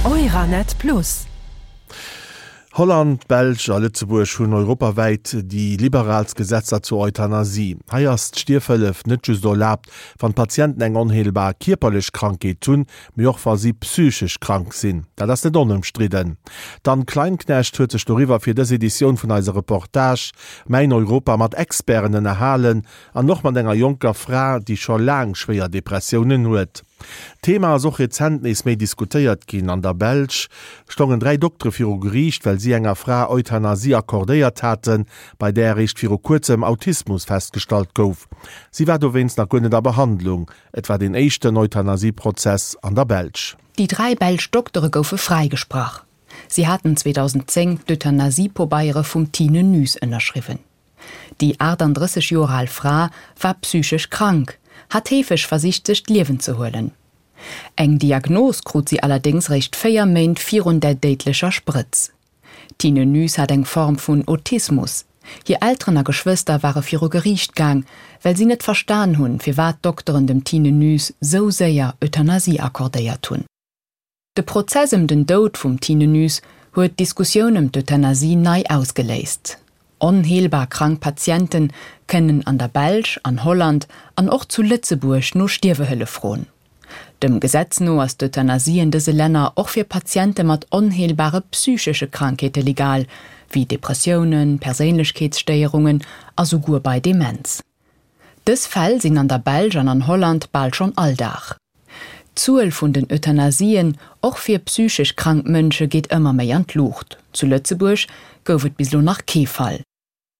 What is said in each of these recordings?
Euranet Plus. Holland, d'Belsch a Lëtzebuerg hunn europawäit déi liberaalst Gesetzer zur Euthanasie. Hei ass d'Stierfhëllef net just erlaabt, wann d'Patienten eng onheelbar kierperlech Krankheet hunn, mee och wa si psychesch krank sinn. Dat ass net onëmstridden. D'Anne Kleinknecht huet sech doriwwer fir dës Editioun vun eiser Reportage Mäin Europa mat Experten ënnerhalen an och mat enger jonker Fra, déi scho laang schwéier Depressiounen huet. D'Thema ass och rezent nees méi diskutéiert ginn. An der Belsch stongen 3 Doktere viru Geriicht, well si enger Fra Euthanasie accordéiert haten, bei där eréischt viru kuerzem Autismus festgestallt gouf. Si war dowéinst nach guer net a Behandlung. Et war deen éischten Euthanasie-Prozess an der Belsch. Déi 3 belsch Doktere goufe fräigesprach. Si haten 2010 d'Euthanasie-Pobeiere vum Tine Nys ënnerschriwwen. Déi 38 Joer al Fra war psychesch krank, hat heefeg versicht sech d'Liewen ze huelen. Eng Diagnos krut si allerdéngs réischt 4 Méint virun der déidlecher Sprëtz. D'Tine Nys hat eng Form vun Autismus. Hir Elteren a Geschwëster ware viru Geriicht gaang, well si net verstan hunn, firwat d'Dokteren dem Tine Nys sou séier Euthanasie accordéiert hunn. De Prozess ëm den Doud vum Tine Nys huet d'Diskussioun ëm d'Euthanasie nei ausgeléist. Onheelbar krank Patiente kënnen an der Belsch, an Holland an och zu Lëtzebuerg no Stierwehëllef froen. Dem Gesetz no ass d'Euthanasie en dëse Länner och fir Patiente mat onheelbare psychesche Krankheete legal, wéi Depressiounen, Perséinlechkeetsstéierungen a souguer bei Demenz. Dës Fäll sinn an der Belsch an an Holland bal schonn Alldag. D'Zuel vun den Euthanasien, och fir psychesch krank Mënsche, geet ëmmer méi an d'Luucht. Zu Lëtzebuerg gouf et bis elo nach kee Fall.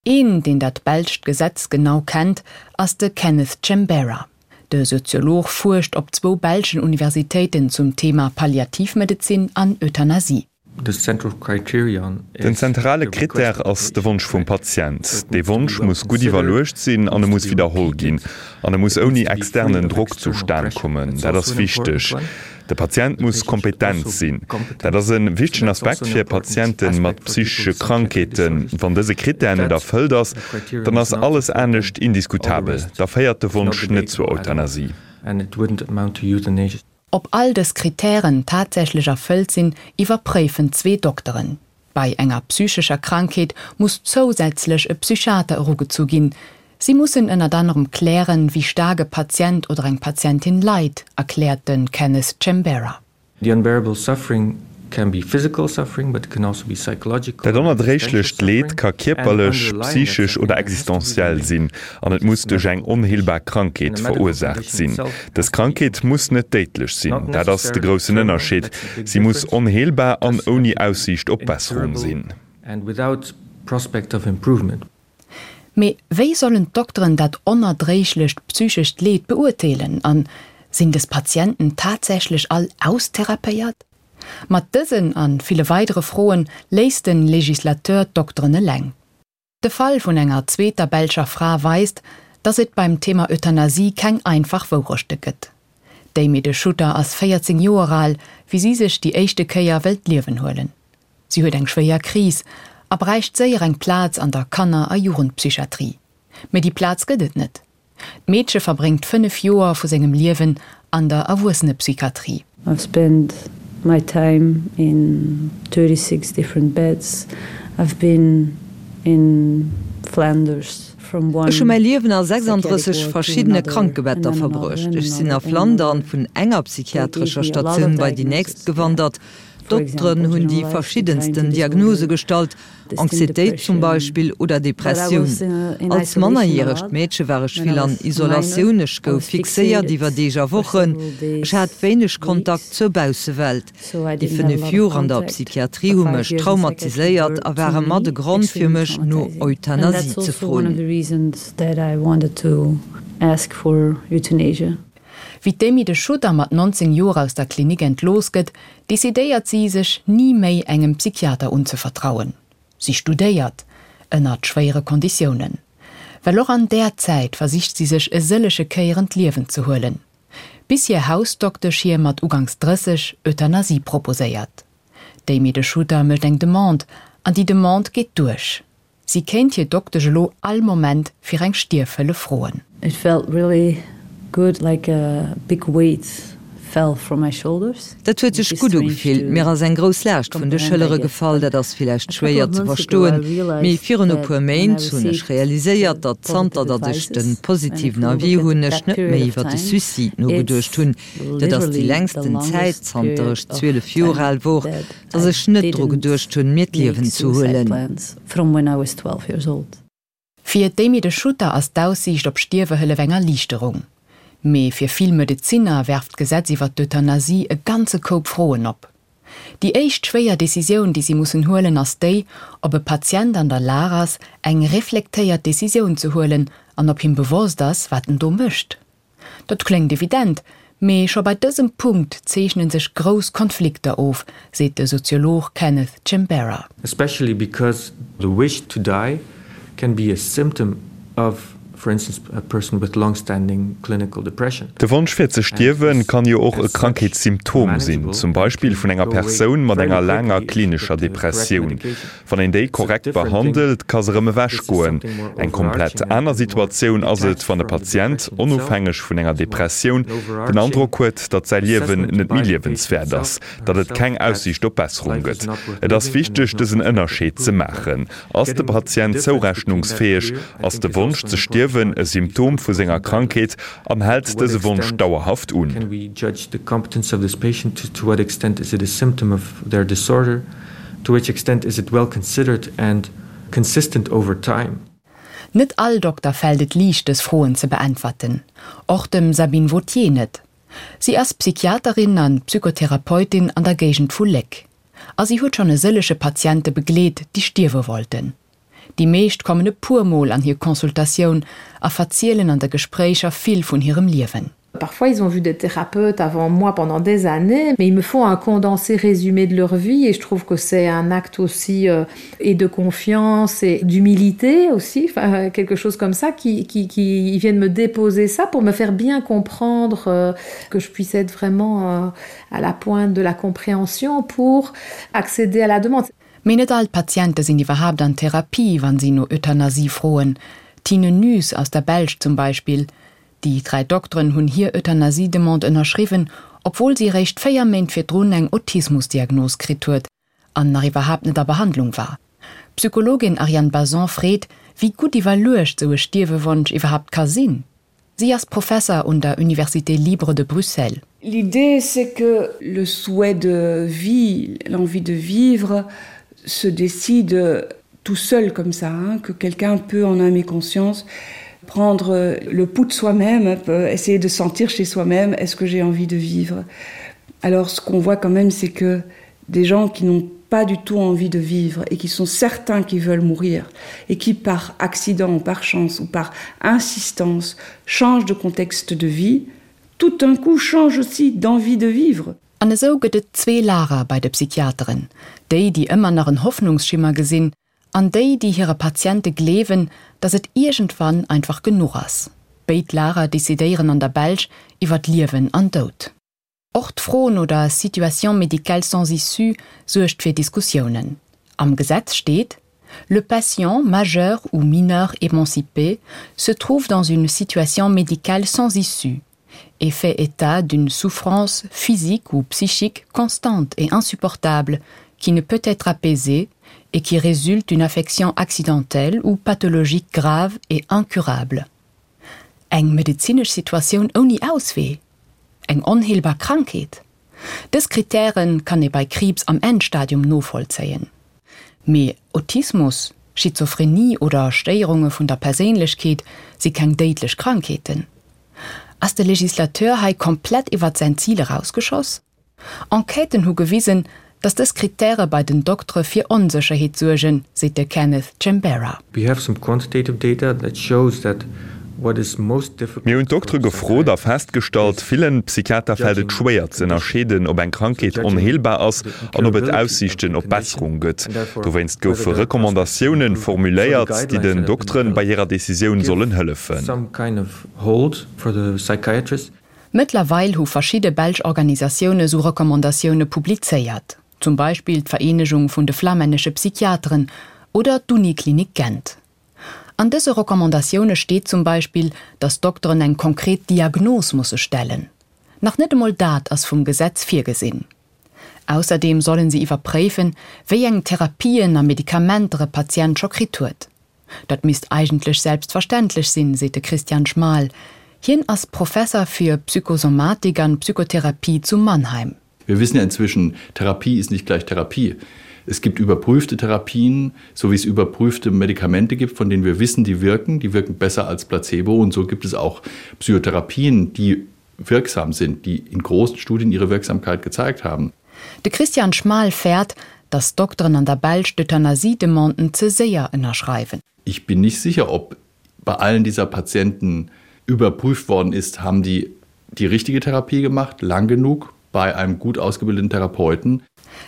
Een, deen dat belscht Gesetz genau kennt, ass de Kenneth Chembera. De Soziolog fuerscht op zwou belschen Universitéiten zum Thema Palliativmedezin an Euthanasie. Den zentrale Krittär ass de Wonsch vum Patient. Dee Wonsch muss gutt iwwerluecht sinn an e muss widderholl ginn. An e muss ouni externen Drock zustan kommen. Dat ass wichteg. De Patient muss kompetent sinn. Dat ass e wichtegen Aspekt fir Patiente mat psychesche Krankheeten. Wann dëse Krittär net erfëllt ass, dann ass alles anescht indiskutabel. Da féiert de Wonsch net zur Euthanasie. Ob all dës Kritären tatsächlech erfëllt sinn, iwwerpréifen zwee Dokteren. Bei enger psychescher Krankheet muss zousätzlech e Psychiater erugezu ginn. Si mussen ënnert anerem klären, wéi staark e Patient oder eng Patientin leit, erkläert de Kenneth Chembera. The unbearable suffering can be physical suffering, but it can also be psychological Dat onerdréiglecht Leed ka kierperlech, psychesch oder existenziell sinn an et muss duerch eng onheelbar Krankheet verursaacht sinn. Dës Krankheet muss net déidlech sinn, dat ass de groussen Ënnerscheed, si muss onheelbar an ouni Aussiicht op Besserung sinn. Mee wéi sollen d'Dokteren dat onerdréiglecht psychescht Leed beurteelen? An sinn dës Patienten tatsächlech all austherapéiert? Mat dësen a ville weidere Froen léisst de Legislateur d'Dokteren eleng. De Fall vun enger zweeter belscher Fra weist, datt et beim Thema Euthanasie keng einfach Wourechte gëtt. D'Amy De Schutter ass 14 Joer al, wéi si sech déi éischte Kéier wëll d'Liewen huelen. Si huet eng schwéier Kris a bräicht séier eng Plaz an der Kanner a Jugendpsychiatrie. Mee déi Plaz gëtt et net. D'Meedche verbréngt 5 Joer vu sengem Liewen an der Erwuessenepsychiatrie. I've spent my time in 36 different beds. I've been in Flanders from one Ech hu mäi Liewen a 36 psychiatric ward to verschiddene another Krankebetter and then another verbruecht. and Ech sinn a another and Flandern another. vun enger They gave psychiatrescher me a lot of Statioun bei déi nächst diagnosis, yeah. gewandert. For D'Dokteren example, hunn déi generalized verschiddensten anxiety Diagnose disorder, gestallt, distinct Anxietéit zum depression. Beispill oder But I Depressioun. was in Als isolation a mannerjäregt lot Meedche war ech when I vill an was a minor. Isolatioun, ech I gouf was fixéiert fixated iwwer Deeg a for Wochen, several ech hat days, wéineg Kontakt weeks. zur Baussewelt. So I Déi didn't have a 5 lot of Joer an der contact. Psychiatrie The hu five mech years in psychiatry traumatiséiert were a to ware mat e me Grond fir extremely mech no traumatizing. And Euthanasie that's ze also one of froen. the reasons that I wanted to ask for euthanasia. Wéi d'Amy de Schutter mat 19 Joer aus der Klinik entlooss gëtt, decidéiert si, sech ni méi engem Psychiater unzevertrauen. Si studéiert, ënnert schwéiere Konditiounen. Well och an där Zäit versicht si sech e sëllege Kéieren d'Liewen ze huelen. Bis hir Hausdoktesch hir mat uganks 30 Euthanasie proposéiert. D'Amy de Schutter mécht eng Demande, an déi Demande geet duerch. Si kéint hir Doktesch elo all Moment fir eng Stierfhëllef froen. It felt really good, like a big weight. fell from my shoulders. Dat huet sech gutt ugefillt. Mir ass eng grouss Laascht vun de Schëllere gefall. Dat ass villäicht schwéier ze verstoen, mee virun e puer Méint hunn ech realiséiert, datt zanter datt ech de positiven Avis hunn, ech net méi iwwer de Suicide nogeduecht hunn. Dat ass déi längsten Zäit, zanter ech 12 Joer al wor, datt ech net dru geduecht hunn, mir d'Liewen ze huelen. Fir d'Amy De Schutter ass d'Aussiicht op Stierwehëllef eng Erliichterung. Mee fir vill Medezinner werft d'Gesetz iwwer d'Euthanasie e ganze Koup Froen op. Déi éischt schwéier Decisioun, déi si mussen huelen, ass déi, ob e Patient an der Lag ass, eng reflektéiert Decisioun ze huelen an ob him bewosst ass, wat en do mécht. Dat kléngt evident, mee scho bei dësem Punkt zeechne sech grouss Konflikter of, seet de Soziolog Kenneth Chimbera. Especially because the wish to die can be a symptom of, for instance, a person with long-standing clinical depression. De Wonsch fir ze stierwen kann jo och e Krankheetssymptom sinn, zum Beispill vun enger Persoun mat enger laanger klinescher Depressioun. Wann een déi korrekt behandelt, ka se erëm ewech goen. Eng komplett aner Situatioun ass et, wann e Patient, onofhängeg vun enger Depressioun, den Androck huet, datt säi Liewen net méi liewenswäert ass, datt et keng Aussiicht op Besserung gëtt. Et ass wichteg, dësen Ënnerscheed ze maachen. Ass de Patient zourechnungsfäeg? Ass de Wonsch ze stierwen e Symptom vu senger Krankheet an hält dëse Wonsch dauerhaft un? To which extent is it well considered and consistent over time? Net all Dokter fält et liicht dës Froen ze beäntwerten, och dem Sabine Vauthier net. Si ass Psychiaterin an Psychotherapeutin an der Géigend vu Léck. A si huet schonn e sëllege Patiente begleet, déi stierwe wollten. Déi meescht kommen e puer Mol an hir Consultatioun a verzielen an de Gespréicher vill vun hirem Liewen. Parfois ils ont vu des thérapeutes avant moi pendant des années, mais ils me font un condensé résumé de leur vie et je trouve que c'est un acte aussi euh, et de confiance et d'humilité aussi, enfin, quelque chose comme ça qui, qui, qui ils viennent me déposer ça pour me faire bien comprendre euh, que je puisse être vraiment euh, à la pointe de la compréhension pour accéder à la demande. Mee net all d'Patiente sinn iwwerhaapt an Therapie, wann si no Euthanasie froen. D'Tine Nys aus der Belsch zum Beispill. Déi 3 Dokteren hunn hir Euthanasie-Demande ënnerschriwwen, obwuel si eréischt 4 Méint virdrun eng Autismus-Diagnos kritt huet an nach iwwerhaapt net a Behandlung war. D'Psychologin Ariane Bazon freet, wéi gutt iwwerluecht sou e Stierwewonsch iwwerhaapt ka sinn. Sie ass Professer un der Université libre de Bruxelles. L'idée c'est que le souhait de vie, l'envie de vivre se décide tout seul comme ça, hein, que quelqu'un peut en âme et conscience prendre le pouls de soi-même, essayer de sentir chez soi-même est-ce que j'ai envie de vivre. Alors ce qu'on voit quand même c'est que des gens qui n'ont pas du tout envie de vivre et qui sont certains qui veulent mourir et qui par accident ou par chance ou par insistance changent de contexte de vie, tout d'un coup changent aussi d'envie de vivre. An esou gëtt et zwee Lager bei de Psychiateren, déi, déi ëmmer nach en Hoffnungsschimmer gesinn, an déi, déi hire Patiente gleewen, datt et iergendwann einfach genuch ass. Béid Lager decidéieren an der Belsch iwwer Liewen an Doud. Och d'Fro no der Situation médicale sans issue suergt fir Diskussiounen. Am Gesetz steet, Le patient, majeur ou mineur émancipé, se trouve dans une situation médicale sans issue et fait état d'une souffrance physique ou psychique constante et insupportable qui ne peut être apaisée et qui résulte d'une affection accidentelle ou pathologique grave et incurable. Eng medezinesch Situatioun ouni Auswee? Eng onheelbar Krankheet? Dës Krittäre kann ee bei Kriibs am Endstadium novollzéien. Mee Autismus, Schizophrenie oder Stéierunge vun der Perséinlechkeet si keng déidlech Krankheeten. Ass de Legislateur hei komplett iwwert säin Zil erausgeschoss? Enquêten hu gewisen, datt dës Krittäre bei den Doktere fir Onsécherheet suergen, seet de Kenneth Chembera. We have some quantitative data that shows that what is most difficult Mir hunn d'Doktere gefrot a festgestallt, villen Psychiater fält et schwéier ze ënnerscheeden, ob eng Krankheet onheelbar ass an ob et Aussiichten op Besserung gëtt. Dowéinst goufe Recommandatiounen formuléiert, déi den Dokteren bei hirer Decisioun sollen hëllefen. Mëttlerweil hu verschidde belsch Organisatioune sou Recommandatioune publizéiert, zum Beispill d'Vereenegung vun de flamännesche Psychiateren oder d'Uniklinik Gent. An dëse Recommandatioune steet zum Beispill, datt Dokteren eng konkret Diagnos musse stellen. Nach net emol dat ass vum Gesetz virgesinn. Ausserdeem sollen si iwwerpréifen, wéi eng Therapien a Medikamenter e Patient scho kritt huet. Dat misst eigentlech selbstverständlech sinn, seet de Christian Schmahl. Hien ass Professer fir Psychosomatik an Psychotherapie zu Mannheim. Wir wissen ja inzwischen, Therapie ist nicht gleich Therapie. Es gibt überprüfte Therapien, so wie es überprüfte Medikamente gibt, von denen wir wissen, die wirken, die wirken besser als Placebo und so gibt es auch Psychotherapien, die wirksam sind, die in großen Studien ihre Wirksamkeit gezeigt haben. De Christian Schmahl fäert, datt d'Dokteren an der Belsch d'Euthanasie-Demanden ze séier ënnerschreiwen. Ich bin nicht sicher, ob bei allen dieser Patienten überprüft worden ist, haben die die richtige Therapie gemacht, lang genug bei einem gut ausgebildeten Therapeuten.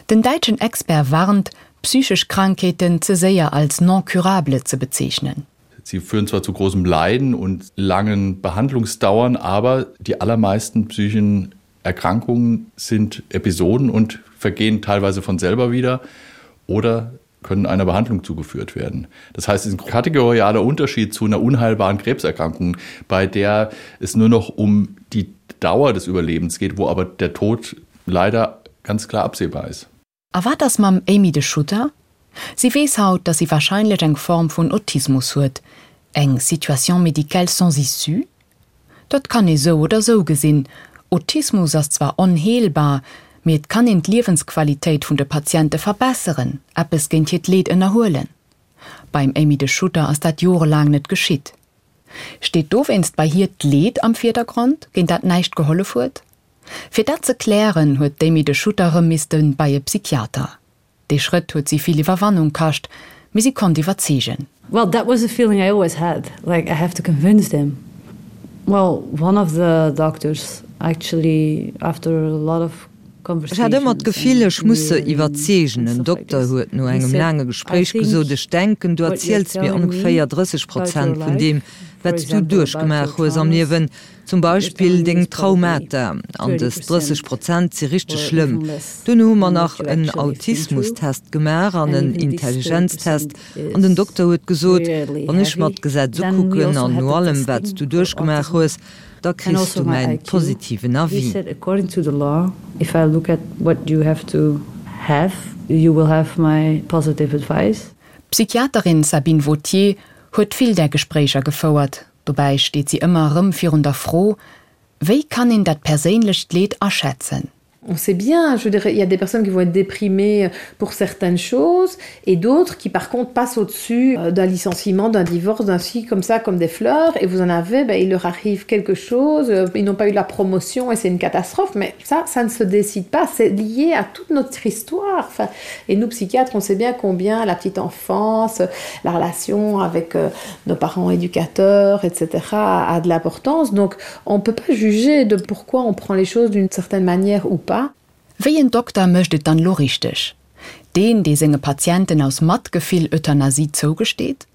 Den däitschen Expert warnt, psychesch Krankheeten ze séier als non curable ze bezeechnen. Sie führen zwar zu großem Leiden und langen Behandlungsdauern, aber die allermeisten psychischen Erkrankungen sind Episoden und vergehen teilweise von selber wieder oder können einer Behandlung zugeführt werden. Das heißt, es ist ein kategorialer Unterschied zu einer unheilbaren Krebserkrankung, bei der es nur noch um die Dauer des Überlebens geht, wo aber der Tod leider ganz klar absehbar ist. A wat ass mam Amy de Schutter? Si weess haut, datt si warscheinlech eng Form vun Autismus huet. Eng Situation médicale sans issue? Dat kann ee sou oder sou gesinn. Autismus ass zwar onheelbar, mee et kann een d'Liewensqualitéit vun de Patiente verbesseren, eppes géint hiert Leed ënnerhuelen. Beim Amy de Schutter ass dat jorelaang net geschitt. Steet dowéinst bei hir d'Leed am Virdergrond, géint dat näischt gehollef huet? Fir dat ze klären, huet d'Amy de Schutter erëm misste bei e Psychiater. Dee Schrëtt huet si vill Iwwerwannung kascht, mee si konnt iwwerzeegen. Well, that was a feeling I always had, like I have to convince them. Well, one of the doctors actually after a lot of Ech hat ëmmer d'Gefill, ech muss se iwwerzeegen. En Dokter huet no engem laange Gespréich gesot, Ech denken, du erziels mir ongeféier 30 Prozent vun deem, wat s du duerchgemaach hues am Liewen. Zum Beispill deng Traumata, an dës 30 Prozent si richteg schlëmm. Duerno hu mer nach en Autismustest gemaach an en Intelligenztest an den Dokter huet gesot, wann ech mer d'Gesetz ukucken an no allem wat s du duerchgemaach hues, da kriss du mäin positiven Avis. D'Psychiaterin Sabine Vauthier huet vill där Gespréicher gefouert. Dobäi steet si ëmmer erëm virun der Fro, Wéi kann een dat perséinlecht Leed aschätzen? On sait bien, je veux dire, il y a des personnes qui vont être déprimées pour certaines choses et d'autres qui par contre passent au-dessus euh, d'un licenciement, d'un divorce, d'un ci comme ça comme des fleurs et vous en avez, ben, il leur arrive quelque chose, euh, ils n'ont pas eu la promotion et c'est une catastrophe, mais ça ça ne se décide pas, c'est lié à toute notre histoire. Enfin, et nous psychiatres, on sait bien combien la petite enfance, la relation avec euh, nos parents éducateurs, etc. a de l'importance. Donc on ne peut pas juger de pourquoi on prend les choses d'une certaine manière ou pas. Wéi en Dokter mécht et dann lo richteg? Deen, dee senge Patienten aus Matgefill Euthanasie zougesteet?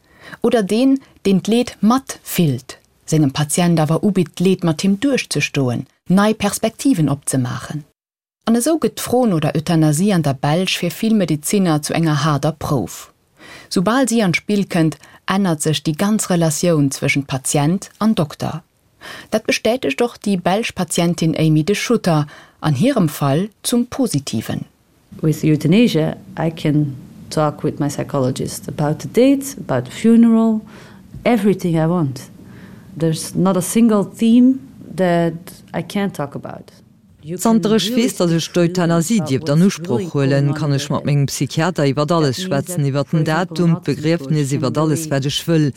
Oder deen, deen d'Leed matfillt, sengem Patient awer ubitt, d'Leed mat him duerchzestoen, nei Perspektiven opzemaachen? An esou gëtt d'Fro no der Euthanasie an der Belsch fir vill Medezinner zu enger haarder Prouf. Soubal si an d'Spill kënnt, ännert sech déi ganz Relatioun zwëschent Patient an Dokter. Dat bestätegt och déi belsch Patientin Amy De Schutter, an hirem Fall zum Positiven. With euthanasia I can talk with my psychologist about the date, about the funeral, everything I want. There's not a single theme that I can't talk about. Zanter ech weess, datt ech d'Euthanasie dierft an Usproch huelen, kann ech mat mengem Psychiater iwwert alles schwätzen, iwwert den Datum, d'Begriefnis, iwwert alles wat ech wëll.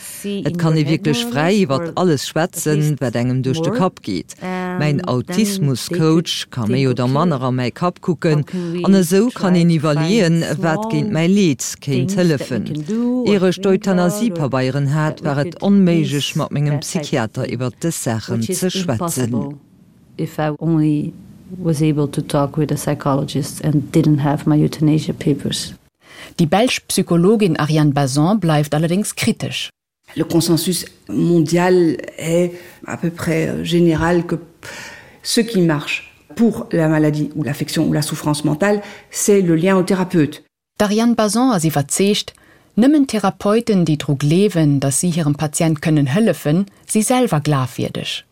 Et kann ee wierklech fräi iwwert alles schwätzen, wat engem duerch de Kapp geet. Mäin Autismus-Coach ka méi oder manner a mäi Kapp kucken an esou kann een iwwerleeën, wat géint mäi Leed kéint hëllefen. Ier ech d'Euthanasie-Pabeieren hat, war et onméiglech mat mengem Psychiater iwwert dës Saachen ze schwätzen. If I only was able to talk with a psychologist and didn't have my euthanasia papers. Déi belsch Psychologin Ariane Bazon bleift allerdéngs kritesch. Le consensus mondial est à peu près euh, général que ce qui marche pour la maladie ou l'affection ou la souffrance mentale, c'est le lien au thérapeute. D'Ariane Bazon ass iwwerzeegt, nëmmen Therapeuten, déi dru gleewen, datt si hirem Patient kënnen hëllefen, si selwer glafwierdeg.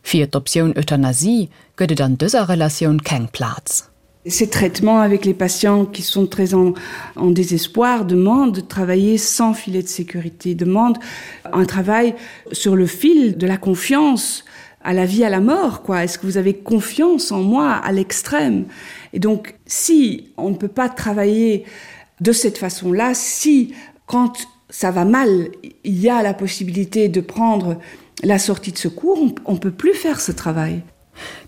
Fir d'Optioun Euthanasie gëtt et an dëser Relatioun keng Plaz. Ces traitements avec les patients qui sont très en, en désespoir demandent de travailler sans filet de sécurité, demandent un travail sur le fil de la confiance à la vie à la mort quoi est-ce que vous avez confiance en moi à l'extrême et donc si on ne peut pas travailler de cette façon là si quand ça va mal il y a la possibilité de prendre la sortie de secours on, on peut plus faire ce travail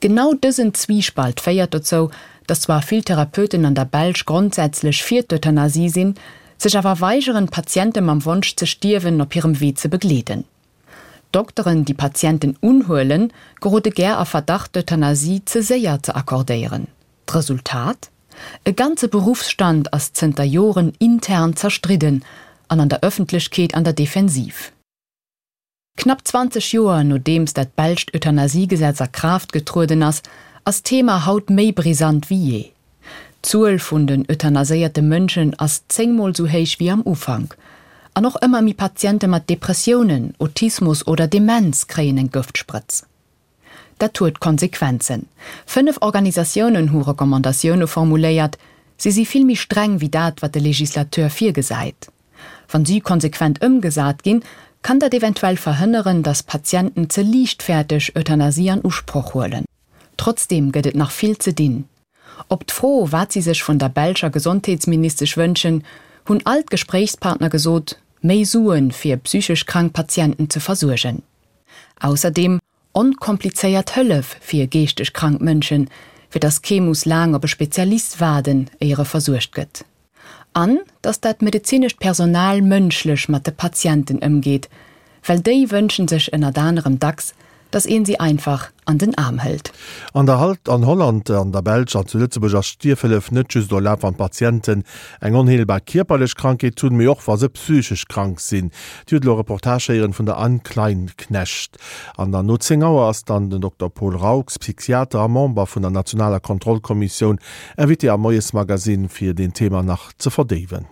Genau dësen Zwiespalt féiert dozou, datt zwar vill Therapeuten an der Belsch grondsätzlech fir d'Euthanasie sinn, sech awer weigeren, Patiente mam Wonsch ze stierwen op hirem Wee ze begleeden. Dokteren, déi Patienten unhuelen, gerode gär a Verdacht, d'Euthanasie ze séier ze accordéieren. D'Resultat? E ganze Beruffsstand ass zënter Joren intern zerstridden an an der Ëffentlechkeet an der Defensiv. Knapp 20 Joer nodeems dat belscht Euthanasiegesetz a Kraaft getrueden ass, ass d'Thema haut méi brisant wéi jee. D'Zuel vun den euthanaséierte Mënschen ass 10 mol sou héich wéi am Ufank. An och ëmmer méi Patiente mat Depressiounen, Autismus oder Demenz kréien eng Gëftsprëtz. Dat huet Konsequenzen. 5 Organisatiounen hu Recommandatioune formuléiert. Si si vill méi streng wéi dat, wat de Legislateur virgesäit. Wann si konsequent ëmgesat ginn, kann dat eventuell verhënneren, datt Patienten ze liichtfäerteg Euthanasie an Usproch huelen. Trotzdeem gëtt et nach vill ze dinn. Op d'Fro, wat si sech vun der belscher Gesondheetsministesch wënschen, hunn all d'Gespréichspartner gesot, méi Suen, fir psychesch krank Patienten ze versuergen. Ausserdeem onkomplizéiert Hëllef fir geeschteg krank Mënschen, fir datt kee muss laang op e Spezialist waarden, éier e versuergt gëtt. An datt dat medezinescht Personal mënschlech mat de Patienten ëmgeet, well déi wënschen sech ënnert anerem dacks, datt een si einfach an den Aarm hëlt. An der Halt, an Holland, an der Belsch an zu Lëtzebuerg ass Stierfhëllef net just erlaabt, wann d'Patienten eng onheelbar kierperlech Krankheet hunn, mee och wa se psychesch krank sinn. Dir hutt elo e Reportage héieren vun der Anne Kleinknecht. An dann no 10 Auer ass dann den Dokter Paul Raux, Psychiater a Member vun der nationaler Kontrollkommissioun, Invité am Moiesmagazine fir deen Thema nach ze verdéiwen.